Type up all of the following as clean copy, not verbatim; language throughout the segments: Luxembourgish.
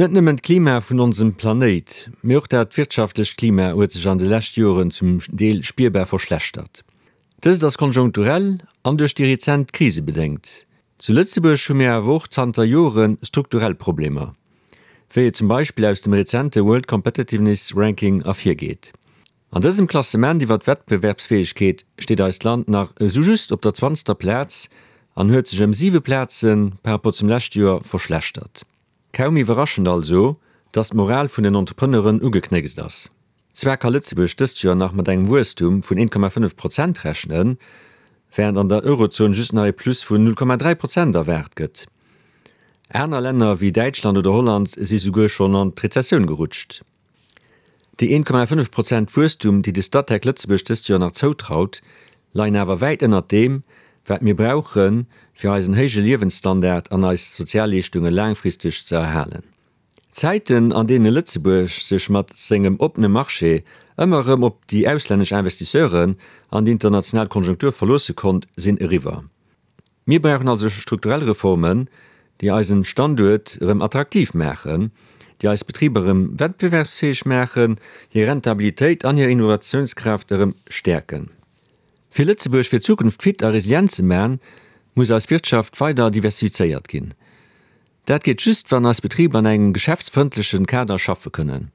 Net nëmmen d'Klima vun onsem Planéit, mee och dat wirtschaftlecht Klima huet sech an de lescht Joren zum Deel spierbar verschlechtert. Dëst ass konjunkturell an duerch déi rezent Krise bedéngt. Zu Lëtzebuerg hu mir awer och zanter Jore strukturell Problemer, wéi et zum Beispill aus dem rezente World Competitiveness Ranking ervirgeet. An dësem Klassement iwwer d'Wettbewerbsfäegkeet steet eist Land nach esou just op der zwanzter Plaz an huet sech ëm siwe Plaze par rapport zum leschte Joer verschlechtert. Kaum iwwerraschend also, dass d'Moral vun den Entrepreneuren ugeknéckst ass. Zwar ka Lëtzebuerg dëst Joer nach mat engem Wuesstum vun 1,5 Prozent rechnen, wärend an der Eurozon just nach ee Plus vun 0,3 Prozent erwaart gëtt. Aner Länner wéi Däitschland oder Holland si souguer schonn an d'Rezessioun gerutscht. Déi 1,5 Prozent Wuesstum, déi de Statec Lëtzebuerg dëst Joer nach zoutraut, leien awer wäit ënnert deem, wat mir brauchen, fir eisen héije Liewensstandard an eis Sozialleeschtunge laangfristeg ze erhalen. D'Zäiten, an deene Lëtzebuerg sech mat sengem oppene Marché ëmmer erëm op déi auslännesch Investisseuren an déi international Konjunktur verloosse konnt, sinn eriwwer. Mir brauchen also strukturell Reformen, déi eisen Standuert erëm attraktiv maachen, déi eis Betriber erëm wettbewerbsfäeg maachen, hir Rentabilitéit an hir Innovatiounskraaft erëm stäerken. Fir Lëtzebuerg fir d'Zukunft fit a resilient ze man, muss eis Wirtschaft weider diversifizéiert ginn. Dat geet just, wann eis Betriber an engem geschäftsfrëndlechen Kader schaffe kënnen.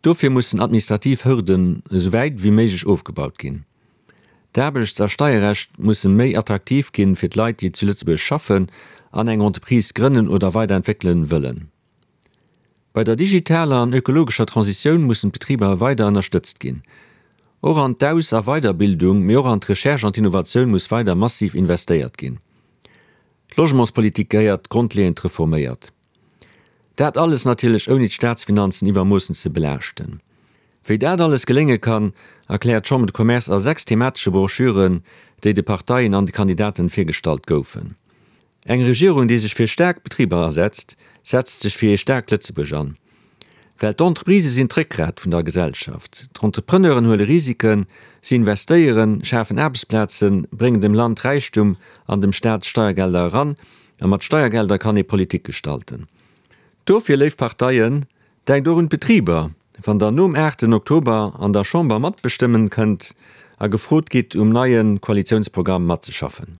Dofir mussen administrativ Hürden esou wäit ewéi méiglech ofgebaut ginn. D'Aarbechts a Steierrecht musse méi attraktiv ginn fir d'Leit, déi zu Lëtzebuerg schaffen an eng Entreprise grënnen oder weiderentwéckelen wëllen. Bei der digitaler an ökologescher Transitioun mussen d'Betriber weider ënnerstëtzt ginn. Och an d'Aus a Weiderbildung, mee och an d'Recherche an d'Innovatioun muss weider massiv investéiert ginn. D'Logementspolitik gehéiert grondleeënd reforméiert. Dat alles natierlech ouni d'Staatsfinanzen iwwermoossen ze belaaschten. Wéi dat alles gelénge kann, erkläert d'Chambre de Commerce a 6 thematesche Broschüren, déi de Parteien an de Kandidaten virgestallt goufen. Eng Regierung, déi sech fir staark Betriber asetzt, setzt sech fir ee staarkt Lëtzebuerg an. Well d'Entreprisë sinn d'Réckgrat vun der Gesellschaft. D'Entrepreneuren huele Risiken, si investéieren, schafen Aarbechtsplazen, bréngen dem Land Räichtum an dem Staat Steiergelder eran. A mat Steiergelder kann ee Politik gestalten. Dofir, léif Parteien, denkt och un d'Betriber, wann der nom aachten Oktober an der Chamber matbestëmmen kënnt a gefrot gitt, um neie Koalitiounsprogramm matzeschaffen.